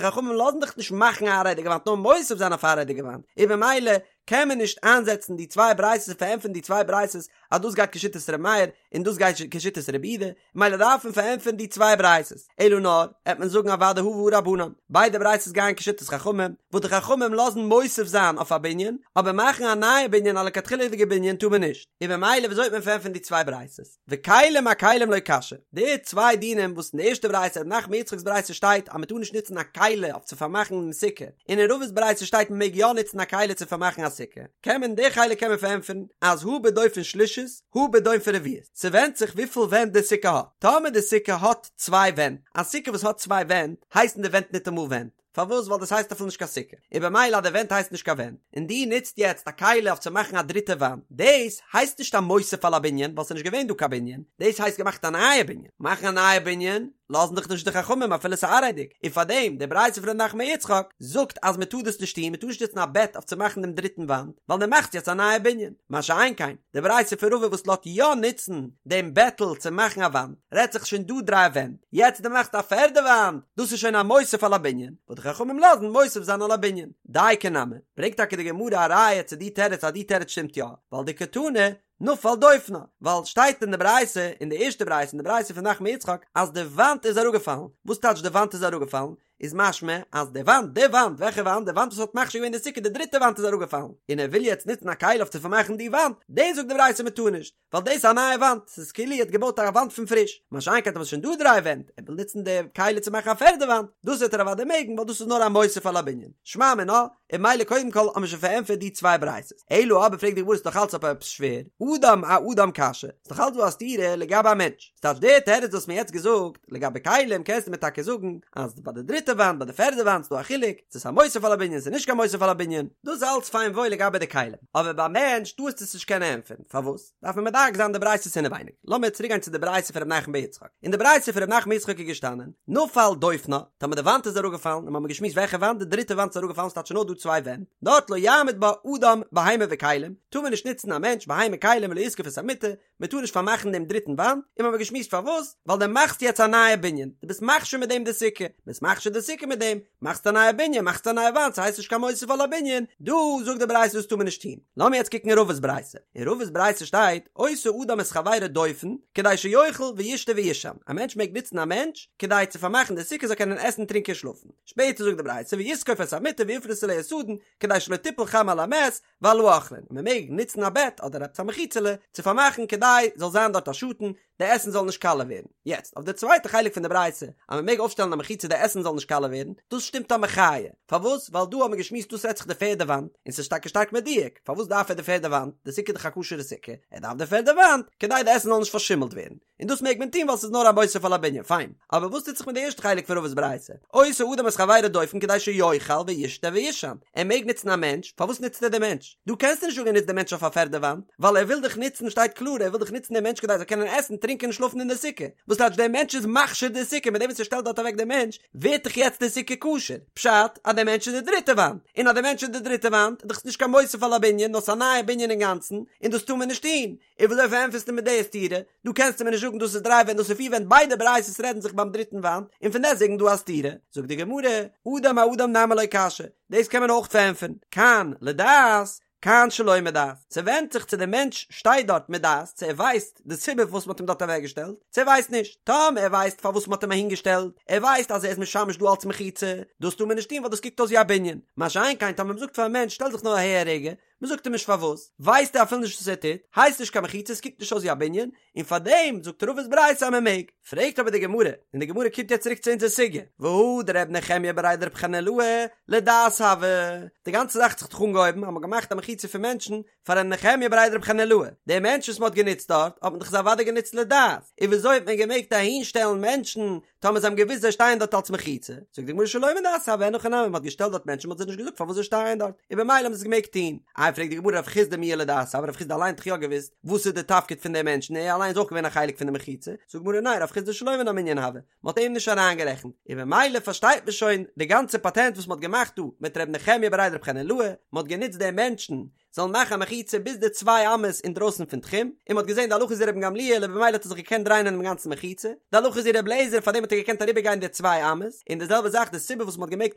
[SPEAKER 1] חכמים לאזן דאך נישט מאכן א עראי'דיגע וואנט נאר מוסיף זיין אויף א עראי'דיגע וואנט, און במילא קען מען נישט איינזעצן די צוויי ברייתות און פארענטפערן די צוויי ברייתות אז דאס גייט כשיטת ר' מאיר און דאס גייט כשיטת רבי יהודה, ממילא דארף מען פארענטפערן די צוויי ברייתות, אלא נאר העט מען זאגן אוודאי הא והא רבנן, ביידע ברייתות גייען כשיטת חכמים, וואס די חכמים לאזן מוסיף זיין אויף א בנין, אבער מאכן א נייע בנין א לכתחילה'דיגע בנין טאר מען נישט, און במילא וויאזוי וועט מען פארענטפערן די צוויי ברייתות? וכלים אכלים לא קשיא, די צוויי דינים וואס אין די ערשטע ברייתא ר' נחמן יצחק'ס ברייתא שטייט אז מען טאר נישט נוצן א כלי אויף צו פארמאכן דעם סוכה, און אין רבא'ס ברייתא שטייט מען מעג יא נוצן א כלי צו פארמאכן א סוכה, קען מען די חלק קען מען פארענטפערן אז הא בדופן שלישית הא בדופן רביעית, ס'ווענדט זיך וויפיל ווענט די סוכה האט, טאמער די סוכה האט צוויי ווענט, א סוכה וואס האט צוויי ווענט הייסן די ווענט ניטאמאל ווענט, פארוואס? ווייל דאס הייסט אפילו נישט קיין סוכה, און במילא אז די ווענט הייסט נישט קיין ווענט, און דו נוצט יעצט א כלי אויף צו מאכן א דריטע וואנט, דאס הייסט נישט א מוסיף על הבנין, ווייל ס'איז נישט געווען דא קיין בנין, דאס הייסט געמאכט א נייע בנין, מאכן א נייע בנין לאזן דאך נישט די חכמים אפילו ס'איז עראי'דיג, און פארדעם די ברייתא פון ר' נחמן יצחק זאגט אז מ'טאר דאס נישט טון, מ'טאר נישט נוצן א בעט אויף צו מאכן דעם דריטן וואנט, ווייל דו מאכסט יעצט א נייע בנין, מה שאין כן די ברייתא פון רבא וואס לאזט יא נוצן דעם בעטל צו מאכן א וואנט, רעדט זיך שוין דא דריי ווענט, יעצט דו מאכסט א פערדע וואנט, דאס איז שוין א מוסיף על הבנין, וואס די חכמים לאזן מוסיף זיין על הבנין. דייקא נמי, ברענגט טאקע די גמרא א ראיה צו די תירוץ אז די תירוץ שטימט יא, ווייל דקתני נפל דופנה, ווייל שטייט אין די ברייתא, אין די ערשטע ברייתא, אין די ברייתא פון נחמן יצחק, אז די וואנט איז אראפגעפאלן, וואס טייטש די וואנט איז אראפגעפאלן? איז משמע אז די וואנט, די וואנט, וועלכע וואנט? די וואנט וואס האט מכשיר געווען די סוכה, די דריטע וואנט איז אראפגעפאלן, און ער וויל יעצט נוצן א כלי אויף צו פארמאכן די וואנט, דאס זאגט די ברייתא מען טאר נישט, ווייל דאס איז א נייע וואנט, ס'איז כאילו ער האט געבויט א וואנט פון פריש, מה שאין כן טאמער ס'איז שוין דא דריי ווענט, ער וויל נוצן די כלי צו מאכן א פערדע וואנט, דאס וועט ער אוודאי מעגן ווייל דאס איז נאר א מוסיף על הבנין. שמע מינה, און ממילא קודם כל האט מען שוין פארענטפערט די צוויי ברייתות. אלא אבער פרעגט די גמרא ס'איז נאך אלץ אבער עפעס שווער, אדם אאדם קשיא, ס'איז נאך אלץ דא א סתירה לגבי א מענטש, ס'טייטש די תירוץ וואס מ'האט יעצט געזאגט לגבי כלים קענסטו מיר טאקע זאגן אז ביי די דריטע וואנט ביי די פערדע וואנט איז דא א חילוק צו ס'איז א מוסיף על הבנין ס'איז נישט קיין מוסיף על הבנין, דאס איז אלץ פיין וואויל לגבי די כלים, אבער ביי מענטש טארסטו עס נישט קענען ענטפערן, פארוואס? דארף מען מדייק זיין די ברייתות אינעווייניג, לאמיר צוריק גיין צו די ברייתא פון ר' נחמן בר יצחק, אין די ברייתא פון ר' נחמן בר יצחק איז געשטאנען, נפל דופנה, טאמער די וואנט איז אראפגעפאלן, און מ'האמיר געשמועסט וועלכע וואנט, די דריטע וואנט איז אראפגעפאלן ס'טייטש נאר דא צוויי ווענט, דארט לא יעמיד בה אדם בהמה וכלים, טאר מען נישט נוצן א מענטש, בהמה, כלים. הכלים ולא יזקוף את המיטה, מען טאר נישט פארמאכן דעם דריטן וואנט, און מ'האמיר געשמועסט פארוואס, ווייל דו מאכסט יעצט א נייע בנין, דו ביסט מכשיר מיט דעם די סוכה, ביסט מכשיר די סוכה מיט דעם, מאכסט א נייע בנין, מאכסט א נייע וואנט, ס'הייסט נישט קיין מוסיף על הבנין, דא זאגט די ברייתא דאס טאר מען נישט טון. לאמיר יעצט קוקן אין רבא'ס ברייתא, אין רבא'ס ברייתא שטייט, עושה אדם את חברו דופן, כדי שיאכל וישתה וישן, א מענטש מעג נוצן א מענטש, כדי צו פארמאכן די סוכה זאל קענען עסן טרינקען שלאפן. שפעטער זאגט די ברייתא, ויזקוף את המיטה ויפרוס עליה סדין, כדי שלא תיפול חמה על המת, ועל האוכלין, מען מעג נוצן א בעט אדער עפעס א מחיצה'לע צו פארמאכן כדי זאל זיין דארט א שאטן, די עסן זאל נישט קאלע ווערן. יעצט, אויף די צווייטע חלק פון די ברייתא, אז מען מעג אויפשטעלן א מחיצה די עסן זאל נישט קאלע ווערן, דאס שטימט א מחיה. פארוואס? ווייל דא האט מען געשמועסט דאס רעדט זיך די פערדע וואנט, און ס'איז טאקע שטארק מדויק, פארוואס דארף ער די פערדע וואנט? די סוכה איז דאך א כשר'ע סוכה, ער דארף די פערדע וואנט כדי די עסן זאל נישט פארשימלט ווערן. און דאס מעג מען טון ווייל ס'איז נאר א מוסיף על הבנין, פיין. אבער וואס טוט זיך מיט די ערשטע חלק פון רבא'ס ברייתא? עושה אדם את חברו דופן כדי שיאכל וישתה וישן. ער מעג נוצן א מענטש, פארוואס נוצט ער די מענטש? דא קענסטו נישט זאגן ער נוצט די מענטש אויף א פערדע וואנט, ווייל ער וויל דאך נוצן, שטייט קלאר, ער וויל דאך נוצן די מענטש כדי ער זאל קענען עסן, טרינקען און שלאפן אין די סוכה. וואס טייטש דער מענטש איז מכשיר די סוכה, מיט דעם וואס ער שטעלט דארט אוועק די מענטש, ווערט דאך יעצט די סוכה כשר. פשט, אז דער מענטש איז די דריטע וואנט. און אז דער מענטש איז די דריטע וואנט, איז דאך עס נישט קיין מוסיף על הבנין, נאר ס'איז א נייע בנין אינגאנצן, און דאס טאר מען נישט טון. און וויאזוי פארענטפערסטו מיר די סתירה? דא קענסטו מיר נישט זאגן דאס איז דריי ווענט דאס איז פיר ווענט ביידע ברייתות רעדן זיך ביים דריטן וואנט און פון דעסטוועגן דא א סתירה. זאגט די גמרא, אדם אאדם נמי לא קשיא, דאס קען מען אויך פארענטפערן, כאן לדעת כאן שלא מדעת, ס'ווענדט זיך צו דער מענטש שטייט דארט מדעת, צו ער ווייסט די סיבה פארוואס מ'האט אים דארט אוועקגעשטעלט, צו ער ווייסט נישט. טאמער ער ווייסט פארוואס מ'האט אים אהינגעשטעלט, ער ווייסט אז ער איז משמש דא אלץ מחיצה, דאס טאר מען נישט טון ווייל דאס קוקט אויס ווי א בנין. מה שאין כן טאמער מ'זאגט פארן מענטש שטעל זיך נאר אהער א רגע, מען זאגט אים נישט פארוואס, ווייסט ער אפילו נישט וואס ער טוט, הייסט נישט קיין מחיצה, עס קוקט נישט אויס ווי א בנין, און פארדעם זאגט רבא'ס ברייתא אז מען מעג. פרעגט אבער די גמרא, און די גמרא קומט יעצט צוריק צו אונזער סוגיא, והא דר' נחמיה בריה דרב חנילאי לדעת הוה, די גאנצע זאך האט זיך דאך אנגעהויבן אז מען האט געמאכט א מחיצה פון מענטשן פאר ר' נחמיה בריה דרב חנילאי, די מענטשן וואס מען האט גענוצט דארט האט מען דאך זיי אוודאי גענוצט לדעת, און וויאזוי האט מען געמעגט אהין שטעלן מענטשן טאמער זיי האבן געוואוסט זיי שטייען דארט אלס מחיצה, זאגט די גמרא שלא מדעת הוה, אין הכי נמי, מען האט געשטעלט דארט מענטשן מען האט זיי נישט געזאגט פארוואס זיי שטייען דארט, און במילא האבן זיי עס געמעגט טון. איי פרעגט די גמרא רב חסדא מיהא לדעת הוה, רב חסדא אליין האט דאך יא געוואוסט וואס איז די תפקיד פון די מענטשן, ער אליין איז אויך געווען א חלק פון די מחיצה, זאגט די גמרא ניין רב חסדא שלא מן המנין הוה, מען האט אים נישט אריינגערעכנט, און במילא פארשטייט מען שוין די גאנצע פאטענט וואס מען האט געמאכט דא מיט ר' נחמיה בריה דרב חנילאי, מען האט גענוצט די מענטשן זאלן מאכן א מחיצה ביז די צוויי אמות אינדרויסן פון תחום, און מ'האט געזען די הלכה איז ווי רבן גמליאל און במילא האט ער זיך געקענט דרייען אינעם גאנצן מחיצה, די הלכה איז ווי רבי אליעזר פארדעם האט ער געקענט אריבערגיין די צוויי אמות, און די זעלבע זאך די סיבה וואס מ'האט געמעגט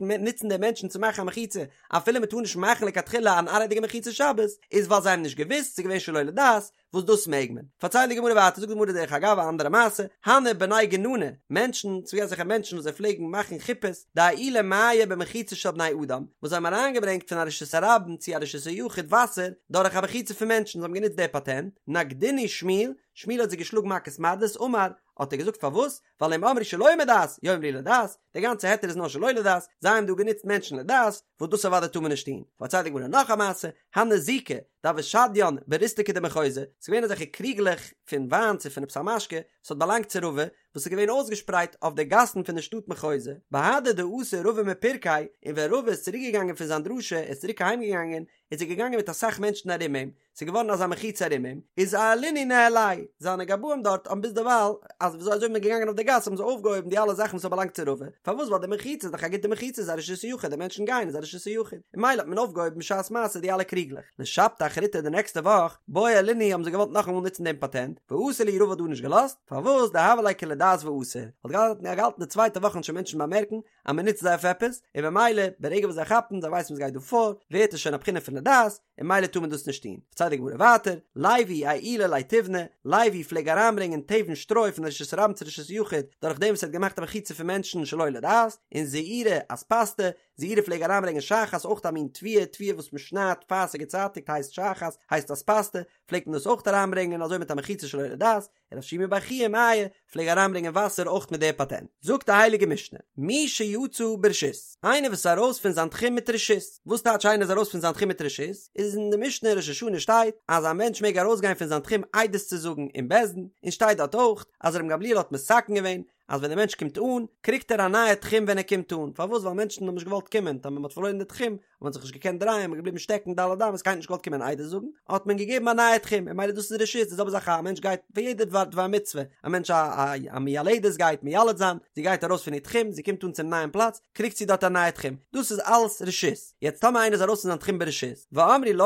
[SPEAKER 1] נוצן די מענטשן צו מאכן א מחיצה אפילו מ'טאר נישט מאכן לכתחילה אן עראי'דיגע מחיצה שבת, איז ווייל זיי האבן נישט געוואוסט, ס'איז געווען שלא לדעת, וואס דאס מעג מען. פארציילט די גמרא ווייטער, זאגט די גמרא דרך אגב א אנדערע מעשה, הנהו בני גנני, מענטשן, ס'איז געווען אזעלכע מענטשן וואס זיי פלעגן מאכן חופות, דאעילו מיא במחיצה של בני אדם, וואס זיי האבן אריינגעברענגט פון א רשות הרבים צו א רשות היחיד וואסער, דורך א מחיצה פון מענטשן, זיי האבן גענוצט די פאטענט, נגדינהו שמואל, שמואל האט זיי געשלאגן מכות מרדות, אמר, האט ער געזאגט פארוואס? ווייל אם אמרו שלא מדעת, יאמרו לדעת, די גאנצע היתר איז נאר שלא לדעת, זיי האבן דא גענוצט מענטשן לדעת, וואס דאס אוודאי טאר מען נישט טון. פארציילט די גמרא נאך א מעשה, הנהו זיקי, דהוו שדיין בריסתקא דמחוזא, ס'איז געווען אזעלכע קריגלעך פון וויין צו פון עפעס א משקה, וואס האט באלאנגט צו רבא, וואס איז געווען אויסגעשפרייט אויף די גאסן פון די שטאט מחוזא, בהדי דאתא רבא מפירקיה, און ווען רבא איז צוריק געגאנגען פון זיין דרשה, ער איז צוריק אהיים געגאנגען, איז ער געגאנגען מיט אסאך מענטשן ארום אים, ס'איז געווארן אזא מחיצה ארום אים, איז עיילינהו ניהליה, זיינע גבאים דארט האבן ביזדערווייל, אז וויאזוי אזוי מ'איז געגאנגען אויף די גאס האבן זיי אויפגעהויבן די אלע זאכן וואס האט באלאנגט צו רבא, פארוואס ווייל די מחיצה איז דאך א גוטע מחיצה איז א רשות היחיד די מענטשן גייען איז א רשות היחיד, און ממילא האט מען אויפגעהויבן בשעת מעשה די אלע קריגלעך. לשבתא אחריתא די נעקסטע וואך, בעו עיילינהו האבן זיי געוואלט נאכאמאל נוצן דעם פאטענט, ואסר להו רבא האט דא נישט געלאזט, פארוואס דהוה ליה כלדעת ואסור, האט געהאלטן די צווייטע וואך וועלן שוין מענטשן באמערקן אז מען נוצט זיי אויף עפעס, און במילא ברגע וואס זיי כאפן זיי ווייסן וואס גייט דא פאר, ווערט עס שוין א בחינה פון לדעת, און ממילא טאר מען דאס נישט טון. פארציילט די גמרא ווייטער, לוי אעילא ליה תיבנא, לוי פלעג אריינברענגען תבן שטרוי פון רשות הרבים צו רשות היחיד, דורך דעם וואס ער האט געמאכט א מחיצה פון מענטשן שלא לדעת, און זעירי אספסתא, זעירי פלעג אריינברענגען שחת, אויך א מין תבואה, תבואה וואס מען שניידט פאר ס'איז געצייטיגט הייסט שחת, הייסט אספסתא, פלעגט מען דאס אויך אריינברענגען אזוי מיט א מחיצה שלא לדעת, רב שימי בר חייא מיא פלעג אריינברענגען וואסער אויך מיט די פאטענט. זאגט די הייליגע משנה, מי שיצא ברשות, איינער וואס איז ארויס פון זיין תחום מיט רשות, וואס טייטש איינער איז ארויס פון זיין תחום מיט רשות? איז אין די משנה אין ראש השנה שטייט אז א מענטש מעג ארויסגיין פון זיין תחום עדות צו זאגן אין בית דין, און שטייט דארט אויך אז רבן גמליאל האט מתקן געווען אז ווען דער מענטש קומט אן, קריגט ער א נייע תחום ווען ער קומט אן, פארוואס? ווייל מענטשן האבן נישט געוואלט קומען, טאמער מען האט פארלוירן די תחום, האט מען זיך נישט געקענט דרייען, מען איז געבליבן שטעקן ד' אמות, קיינער האט נישט געוואלט קומען עדות זאגן, האט מען געגעבן א נייע תחום, און ממילא דאס איז רשות, די זעלבע זאך א מענטש גייט פאר יעדע דבר דבר מצוה, א מענטש א א א מיילדת גייט מיילד זיין, זי גייט ארויס פון איר תחום, זי קומט אן צום נייעם פלאץ, קריגט זי דארט א נייע תחום, דאס איז אלס רשות, יעצט טאמער איינער איז ארויס פון זיין תחום ברשות, ואמרו לו,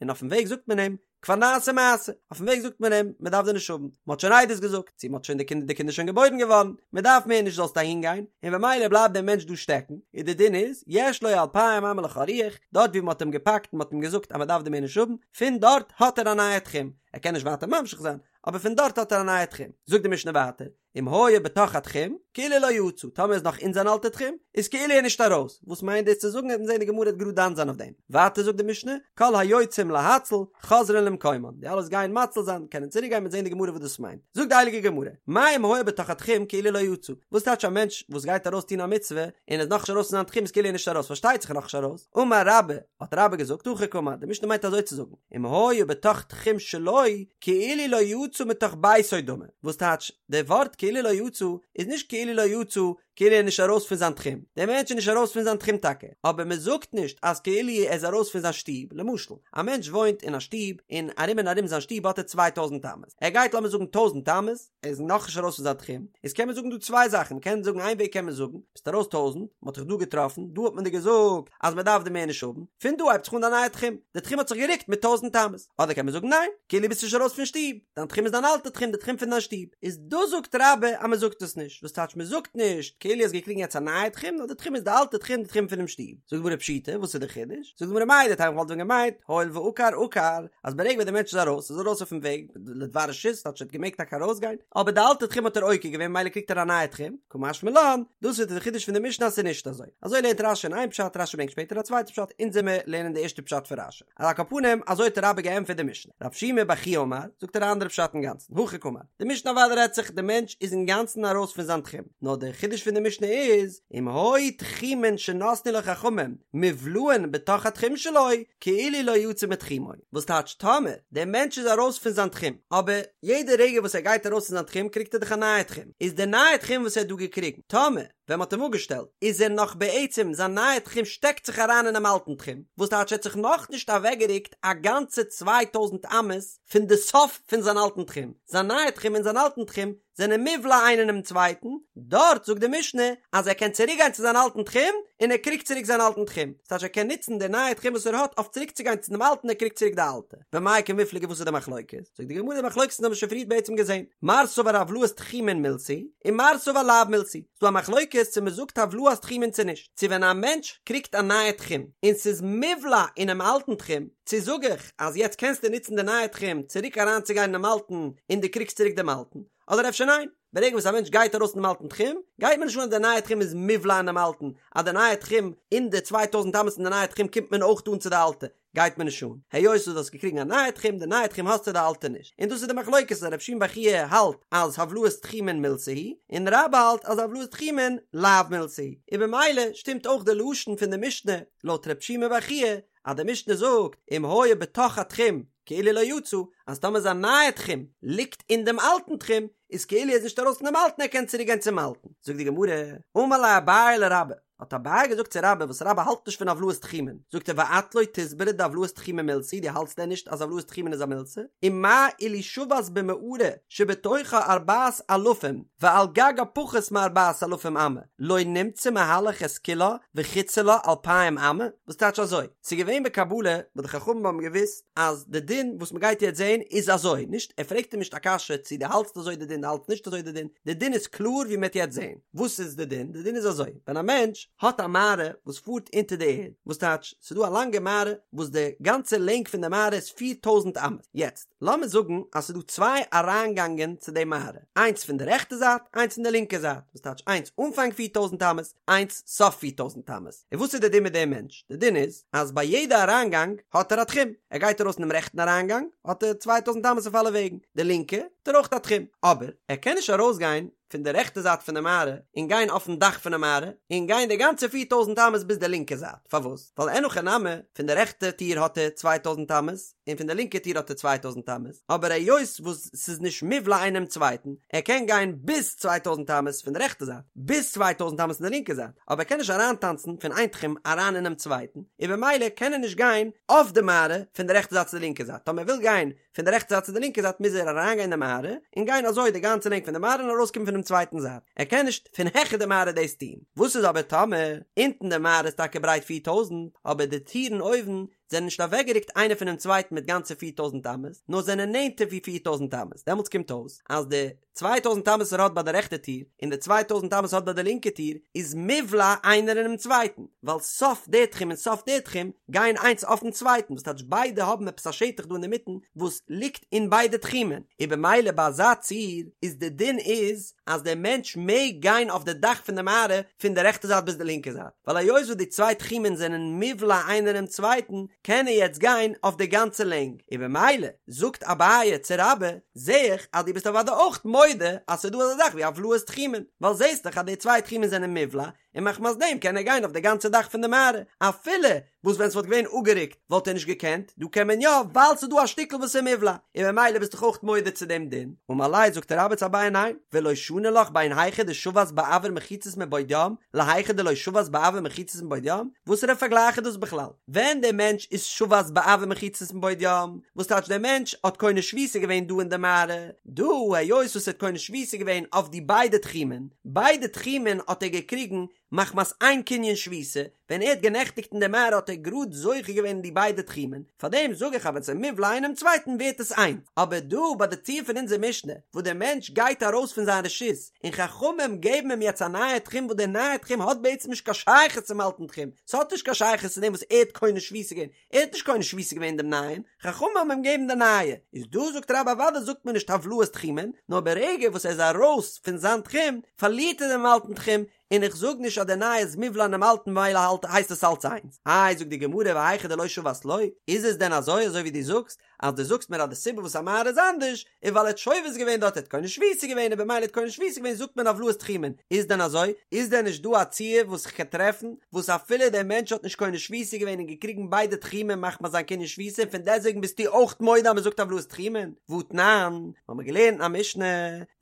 [SPEAKER 1] און אויפן וועג זאגט מען אים, כבר נעשה מעשה, אויפן וועג זאגט מען אים, מען דארף דיר נישט האבן, מען האט שוין עדות געזאגט, צו מען האט שוין די קינדער, די קינד איז שוין געבוירן געווארן, מען דארף מער נישט זאלסט אהין גיין, און במילא בלייבט דער מענטש דא שטעקן, און די דין איז, יש לו אלפיים אמה לכל רוח, דארט ווי מען האט אים געפאקט און מען האט אים געזאגט אז מען דארף דיר מער נישט האבן, פון דארט האט ער א נייע תחום, ער קען נישט ווייטער ממשיך זיין, אבער פון דארט האט ער א נייע תחום. זאגט די משנה ווייטער, אם היה בתוך התחום, כאילו לא יצא, טאמער איז נאך אין זיין אלטע תחום, איז כאילו ער נישט ארויס, וואס מיינט דאס צו זאגן, וועט מען זען די גמרא וועט גראד דן זיין אויף דעם. ווייטער זאגט די משנה, כל היוצאים להציל, חוזרין למקומן, די אלע וואס גייען מציל זיין, קענען צוריק גיין, מ'וועט זען די גמרא וואס דאס מיינט. זאגט די הייליגע גמרא, מאי אם היה בתוך התחום כאילו לא יצא, וואס טייטש א מענטש וואס גייט ארויס טון א מצוה, און איז נאכנישט ארויס פון זיין תחום איז כאילו ער נישט ארויס, פארשטייט זיך נאכנישט ארויס, אמר רבה, האט רבה געזאגט, הכי קאמר, די משנה מיינט אזוי צו זאגן, אם היה בתוך תחום שלו, כאילו לא יצא מתוך ביתו דמי, וואס טייטש, די ווארט כאילו לא יצא, איז נישט כאילו לא יצא, כאילו ער איז נישט ארויס פון זיין תחום, דער מענטש איז נישט ארויס פון זיין תחום טאקע, אבער מען זאגט נישט אז כאילו ער איז ארויס פון זיין שטוב, למשל, א מענטש וואוינט אין א שטוב, און ארום און ארום זיין שטוב האט ער צוויי טויזנט אמות, ער גייט לאמיר זאגן טויזנט אמות, ער איז נאכנישט ארויס פון זיין תחום, איז קען מען זאגן דא צוויי זאכן, מען קען זאגן איין וועג קען מען זאגן, ביסט ארויס טויזנט, מען האט דיך דא געטראפן, דא האט מען דיר געזאגט אז מען דארף דיר מער נישט האבן, פון דא הייבט זיך אן דיין נייע תחום, די תחום האט זיך גערוקט מיט טויזנט אמות, אדער קען מען זאגן ניין, כאילו ביסט נישט ארויס פון שטוב, דיין תחום איז דיין אלטע תחום, די תחום פון דיין שטוב, איז דאס זאגט רבה אז מען זאגט עס נישט, וואס טייטש מען זאגט נישט, כאילו האסט געקריגן יעצט א נייע תחום, נאר די תחום איז די אלטע תחום, די תחום פונעם שטוב. זאגט די גמרא פשיטא, וואס איז די חידוש? זאגט די גמרא מהו דתימא כ'וואלט ווען געמיינט, הואיל ועקר עקר, אז ברגע ווען דער מענטש איז ארויס, איז ארויס אויפן וועג, לדבר רשות, טייטש ער האט געמעגט טאקע ארויסגיין, אבער די אלטע תחום האט ער עוקר געווען ממילא קריגט ער א נייע תחום, קא משמע לן, דאס איז די חידוש פון די משנה אז ס'איז נישט אזוי. אזוי לערנט רש"י אין איין פשט, רש"י ברענגט שפעטער א צווייטע פשט, אונז עמיר לערנען די ערשטע פשט פון רש"י. על כל פנים, אזוי האט רבה געענטפערט די משנה. רב שימי בר חייא אמר, זאגט ער א אנדערע פשט אינגאנצן, הכי קאמר, די משנה אוודאי רעדט זיך די מענטש איז אינגאנצן ארויס פון זיין תחום, נאר דער חידוש פון די משנה איז, אם היו תחומין שנתנו לו חכמים מובלעין בתוך התחום שלו, כאילו לא יצא מתחומו. וואס טייטש טאמער דער מענטש איז ארויס פון זיין תחום, אבער יעדע רגע וואס ער גייט ארויס פון זיין תחום קריגט ער דאך א נייע תחום, איז די נייע תחום וואס ער האט דא געקריגן, טאמער ווען מ'האט אים אפגעשטעלט איז ער נאך בעצם זיין נייע תחום שטעקט זיך אריין אינעם אלטן תחום, וואס טייטש ער האט זיך נאכנישט אוועקגערוקט א גאנצע צוויי טויזנט אמות פון די סוף פון זיין אלטן תחום, זיין נייע תחום און זיין אלטן תחום זענען מובלע איינער אינעם צווייטן, דארט זאגט די משנה אז ער קען צוריק גיין צו זיין אלטן תחום און ער קריגט צוריק זיין אלטן תחום, ס'טייטש ער קען נוצן די נייע תחום וואס ער האט אויף צוריק צו גיין צו דעם אלטן ער קריגט צוריק די אלטע. במאי קמיפלגי וואס איז די מחלוקת? זאגט די גמרא די מחלוקת האבן מיר שוין פריערט בעצם געזען, מר סבר הבלעת תחומין מילתא היא און מר סבר לאו מילתא היא, ס'דא א מחלוקת צו מ'זאגט הבלעת תחומין צו נישט, צו ווען א מענטש קריגט א נייע תחום און ס'איז מובלע אינעם אלטן תחום, צו זאג איך אז יעצט קענסטו נוצן די נייע תחום צוריק אריינצוגיין אינעם אלטן און דו קריגסט צוריק דעם אלטן, אדער אפשר ניין, ברגע וואס א מענטש גייט ארויס פונעם אלטן תחום, גייט מיר נישט אן אז די נייע תחום איז מובלע אינעם אלטן, אז די נייע תחום אין די צוויי טויזנט אמות אין די נייע תחום קומט מען אויך אן צו די אלטע, גייט מיר נישט אן, היות וואס דו האסט געקריגן א נייע תחום, די נייע תחום האסטו די אלטע נישט, און דאס איז די מחלוקת אז רב שימי בר חייא האלט אז הבלעת תחומין מילתא היא, און רבה האלט אז הבלעת תחומין לאו מילתא היא, און במילא שטימט אויך די לשון פון די משנה לויט רב שימי בר חייא, אז די משנה זאגט אם היה בתוך התחום כאילו לא יצא, אז טאמער זיין נייע תחום ליגט אין דעם אלטן תחום, איז כאילו ער איז נישט ארויס פון דעם אלטן ער קען צוריק גיין צום אלטן. זאגט די גמרא, אמר ליה אביי לרבה, האט אביי געזאגט צו רבה וואס רבה האלט נישט פון הבלעת תחומין, זאגט ער ואת לא תסברא דהבלעת תחומין מילתא היא, דו האלטסט דען נישט אז הבלעת תחומין איז א מילתא? ומה אילו שבת במערה שבתוכה ארבעת אלפים ועל גגה פחות מארבעת אלפים אמה, לא נמצא מהלך את כולה וחוצה לה אלפיים אמה? וואס טייטש אזוי? ס'איז געווען בקבלה וואס די חכמים האבן געוואוסט אז די דין וואס מ'גייט יעצט זעהן איז אזוי, נישט ער פרעגט אים נישט א קשיא צו דו האלטסט אזוי די דין דו האלטסט נישט אזוי די דין, די דין איז קלאר ווי מ'עט יעצט זעהן. וואס איז די דין? די דין איז אזוי, ווען א מענטש האט א מערה וואס פארט אונטער די ערד, וואס טייטש ס'איז דא א לאנגע מערה וואס די גאנצע לענג פון די מערה איז פיר טויזנט אמות, יעצט לאמיר זאגן אז ס'איז דא צוויי אריינגאנגען צו די מערה, איינס פון די רעכטע זייט איינס פון די לינקע זייט, וואס טייטש איינס אנפאנג פיר טויזנט אמות, איינס סוף פיר טויזנט אמות, און וואס איז די דין מיט דעם מענטש? די דין איז אז ביי יעדע אריינגאנג האט ער א תחום, ער גייט ארויס אינעם רעכטן אריינגאנג האט ער צוויי טויזנט אמות אויף אלע וועגן, די לינקע האט ער אויך א תחום, אבער ער קען נישט ארויסגיין פון די רעכטע זייט פון די מערה און גיין אויפן דאך פון די מערה און גיין די גאנצע פיר טויזנט אמות ביז די לינקע זייט, פארוואס? ווייל אין הכי נמי, פון די רעכטע טיר האט ער צוויי טויזנט אמות און פון די לינקע טיר האט ער צוויי טויזנט אמות, אבער היות וואס ס'איז נישט מובלע איינעם צווייטן, ער קען גיין ביז צוויי טויזנט אמות פון די רעכטע זייט, ביז צוויי טויזנט אמות פון די לינקע זייט, אבער ער קען נישט אריינטאנצן פון איין תחום אריין אינעם צווייטן, און במילא קען ער נישט גיין אויף די מערה פון די רעכטע זייט צו די לינקע זייט, טאמער ער וויל גיין פון די רעכטע זייט צו די לינקע זייט מוז ער אריינגיין אין די מערה און גיין אזוי די גאנצע לענג פון די מערה און ארויסקומען פונעם צווייטן זייט, ער קען נישט פון העכער די מערה דאס טון. וואס איז אבער טאמער אונטן די מערה איז טאקע ברייט פיר טויזנט אבער די טירן אויבן. זענען נישט אוועקגערוקט איינער פונעם צווייטן מיט גאנצע פיר טויזנט אמות, נאר זענען נענטער ווי 4000 אמות, דעמאלטס קומט אויס אז די 2000 אמות וואס ער האט ביי די רעכטע טיר און די 2000 אמות האט ביי די לינקע טיר איז מובלע איינער אינעם צווייטן, ווייל סוף די תחום און סוף די תחום גייען איינס אויפן צווייטן, וואס טייטש ביידע האבן עפעס א שטח דא אינדערמיטן וואס ליגט אין ביידע תחומין, און במילא ביי אזא ציור איז די דין איז אז דער מענטש מעג גיין אויף די דאך פון די מערה פון די רעכטע זייט ביז די לינקע זייט, ווייל היות וואס די צוויי תחומין זענען מובלע איינער אינעם צווייטן קען ער יעצט גיין אויף די גאנצע לענג, און במילא זאגט אביי צו רבה, זע איך אז דו ביסט אוודאי אויך מודה אז ס'איז דא אזא זאך ווי הבלעת תחומין, ווייל זעסט דאך אז די צוויי תחומין זענען מובלע, און מחמת דעם קען ער גיין אויף די גאנצע דאך פון די מערה, אפילו וואס ווען ס'וואלט געווען אפגערוקט וואלט ער נישט געקענט, דא קען מען יא ווייל ס'איז דא א שטיקל וואס איז מובלע, און ממילא ביסט דאך אויך מודה צו דעם דין, אמר ליה זאגט רבה צו אביי ניין, ולא שני לך בין היכא דשבת באויר מחיצות מבעוד יום להיכא דלא שבת באויר מחיצות מבעוד יום, וואסערע פארגלייך איז דאס בכלל? ווען דער מענטש איז שבת באויר מחיצות מבעוד יום, וואס טייטש דער מענטש האט קונה שביתה געווען דא אין די מערה, דא היות וואס ער האט קונה שביתה געווען אויף די ביידע תחומין, ביידע תחומין האט ער געקריגן מחמת איין קנין שביתה, ווען ער האט גענעכטיגט אין די מערה האט ער גראד זוכה געווען אין די ביידע תחומין, פארדעם זאג איך אז ווען ס'איז מובלע אינעם צווייטן ווערט עס איינס, אבער דא ביי די ציור פון אונזער משנה וואס דער מענטש גייט ארויס פון זיין רשות און חכמים געבן אים יעצט א נייע תחום וואס דער נייע תחום האט בעצם נישט קיין שייכות צום אלטן תחום, ס'האט נישט קיין שייכות צו דעם וואס ער האט קונה שביתה געווען, ער האט נישט קונה שביתה געווען דעם נייעם, חכמים האבן אים געגעבן די נייע, איז דא זאגט רבה אוודאי זאגט מען נישט הבלעת תחומין, נאר ברגע וואס ער איז ארויס פון זיין תחום פארלירט ער דעם אלטן תחום, און איך זאג נישט אז דער נייע איז מובלע אינעם אלטן ממילא האלט הייסט עס אלץ איינס. איי זאגט די גמרא והיכא דלא שבת לא, איז עס דען אזוי אזוי ווי דו זאגסט אז דו זאגסט מיר אז די סיבה וואס א מערה איז אנדערש איז ווייל ער האט שובת געווען דארט ער האט קונה שביתה געווען און במילא האט קונה שביתה געווען זאגט מען הבלעת תחומין, איז דען אזוי? איז דען נישט דא א ציור וואס איך קען טרעפן וואס אפילו דער מענטש האט נישט קונה שביתה געווען און געקריגן ביידע תחומין מחמת זיין קנין שביתה און פון דעסוועגן ביסטו אויך מודה אז מען זאגט הבלעת תחומין? והתנן, האמיר געלערנט אין א משנה,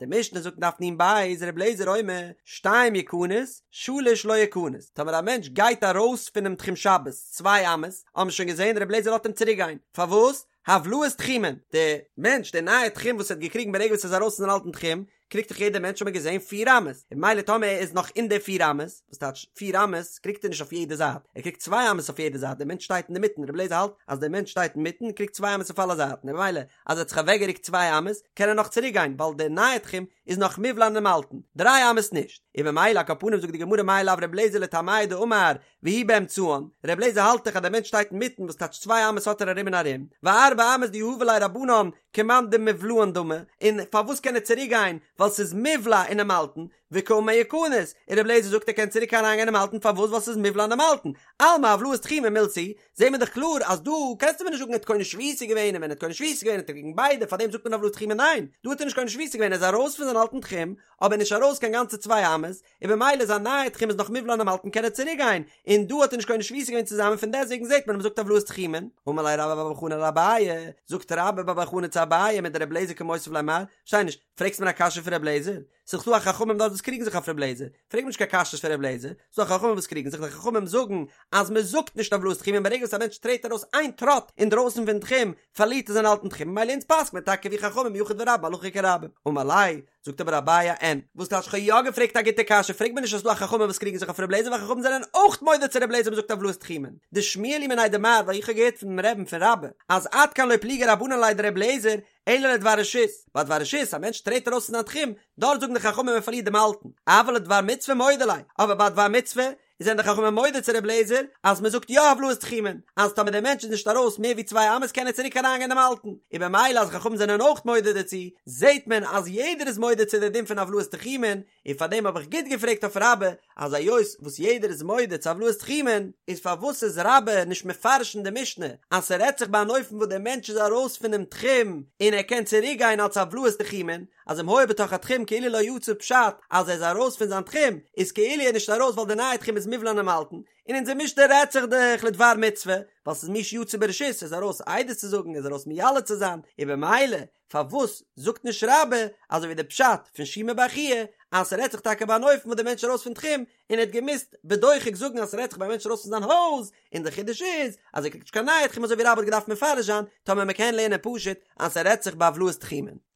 [SPEAKER 1] די משנה זאגט אין דף נ"ב, ר' אליעזר אומר, שתיים יכנס, שלש לא יכנס, טאמער א מענטש גייט ארויס פונעם תחום שבת צוויי אמות, האבן מיר שוין געזען ר' אליעזר לאזט אים צוריק גיין, פארוואס? הבלעת תחומין, די מענטש, די נייע תחום וואס ער האט געקריגן ברגע וואס ער איז ארויס פון זיין אלטן תחום, קריגט דאך יעדער מענטש האט מען געזען פיר אמות, און ממילא טאמער ער איז נאך אין די פיר אמות, וואס טייטש פיר אמות, קריגט ער נישט אויף יעדע זייט, ער קריגט צוויי אמות אויף יעדע זייט, דער מענטש שטייט אינדערמיטן, ר' אליעזר האלט אז דער מענטש שטייט אינמיטן, קריגט צוויי אמות אויף אלע זייטן, און ממילא אז ער האט זיך אוועקגערוקט צוויי אמות, קען ער נאך צוריק גיין, ווייל דער נייע תחום איז נאך מובלע אינעם אלטן, דריי אמות נישט, און ממילא על כל פנים זאגט די גמרא מאי לאו ר' אליעזר לטעמיה דאמר והוא באמצען, ר' אליעזר האלט דאך אז דער מענטש שטייט אינמיטן וואס טייטש צוויי אמות האט ער ארום און ארום, וארבע אמות דיהבו ליה רבנן כמאן דמובלעין דמי, און פארוואס קען ער צוריק גיין ווייל ס'איז מובלע אינעם אלטן, וקאמר יכנס, און ר' אליעזר זאגט ער קען צוריק אריינגיין אינעם אלטן פארוואס ווייל ס'איז מובלע אינעם אלטן, אלמא הבלעת תחומין מילתא היא, זעהן מיר דאך קלאר אז דא קענסטו מיר נישט זאגן ער האט קונה שביתה געווען און ווען ער האט קונה שביתה געווען האט ער געקריגן ביידע פארדעם זאגט מען הבלעת תחומין ניין דא האט ער נישט קונה שביתה געווען ער איז ארויס פון זיין אלטן תחום אבער נישט ארויס קיין גאנצע צוויי אמות און במילא זיין נייע תחום איז נאך מובלע אינעם אלטן קען ער צוריק גיין און דא האט ער נישט קונה שביתה געווען צוזאמען פון דעסוועגן זעהט מען אז מ'זאגט הבלעת תחומין אמר ליה רבה בר בר חנה לאביי זאגט רבה בר בר חנה צו אביי מדר' אליעזר קא מותיב ליה מר פארשטיי נישט פרעגסט מיר א קשיא פון ר' אליעזר ס'איז דאך דא א חכמים דארט וואס קריגן זיך אויף ר' אליעזר, פרעג מיר נישט קיין קשיות פון ר' אליעזר, ס'איז דא חכמים וואס קריגן זיך, די חכמים זאגן אז מען זאגט נישט הבלעת תחומין ברגע וואס א מענטש טרעט ארויס איין טראט אינדרויסן פון תחום פארלירט ער זיין אלטן תחום ממילא אונז פסק'ט מען טאקע ווי חכמים יחיד ורבים הלכה כרבים. אמר ליה, זאגט אבער אביי אין, וואס טייטש כ'האב יא געפרעגט א גוטע קשיא, פרעג מיר נישט אז ס'איז דא א חכמים וואס קריגן זיך אויף ר' אליעזר ווייל חכמים זענען אויך מודה צו ר' אליעזר מ'זאגט הבלעת תחומין, דשמיע לי מיניה דמר ווייל איך האב געהערט פונעם רבי'ן פון רבה אז עד כאן לא פליגי רבנן עליה דר' אליעזר אלא לדבר רשות, ביי דבר רשות, א מענטש טרעט ארויס פון זיין תחום, דארט זאגן די חכמים מען פארלירט דעם אלטן, אבל לדבר מצוה מודו ליה, אבער ביי דבר מצוה, זענען די חכמים מודה צו ר' אליעזר, אז מען זאגט יא הבלעת תחומין, אז טאמער דער מענטש איז נישט ארויס מער ווי צוויי אמות קען ער צוריק אריינגיין דעם אלטן, און במילא אז חכמים זענען אויך מודה דערצו, זעט מען אז יעדער איז מודה צו די דין פון הבלעת תחומין, און פאר דעם האב איך גוט געפרעגט אויף רבה, אז היות וואס יעדער איז מודה צו הבלעת תחומין, איז פארוואס איז רבה נישט מפרש אין די משנה אז ס'רעדט זיך ביי אן אופן וואס דער מענטש איז ארויס פונעם תחום און ער קען צוריק גיין אלס הבלעת תחומין, אז אם היה בתוך התחום כאילו לא יצא פשט אז ער איז ארויס פון זיין תחום איז כאילו ער איז נישט ארויס ווייל די נייע תחום איז מובלע אינעם אלטן, און אונזער משנה רעדט זיך דאך לדבר מצוה, ווייל ס'איז מי שיצא ברשות, ער איז ארויס עדות צו זאגן, ער איז ארויס מיילד צו זיין, און במילא פארוואס זאגט נישט רבה אזוי ווי די פשט פון שימי בר חייא אז ס'רעדט זיך טאקע ביי אן אופן וואס די מענטש איז ארויס פון תחום און ער האט געמוזט בדוחק זאגן אז ס'רעדט זיך ביי א מענטש ארויס פון זיין הויז און די חידוש איז אז ער קריגט נישט קיין נייע תחום אזוי ווי רבה האט געדארפט מפרש זיין טאמער מ'קען לערנען פשוט אז ס'רעדט זיך בהבלעת תחומין.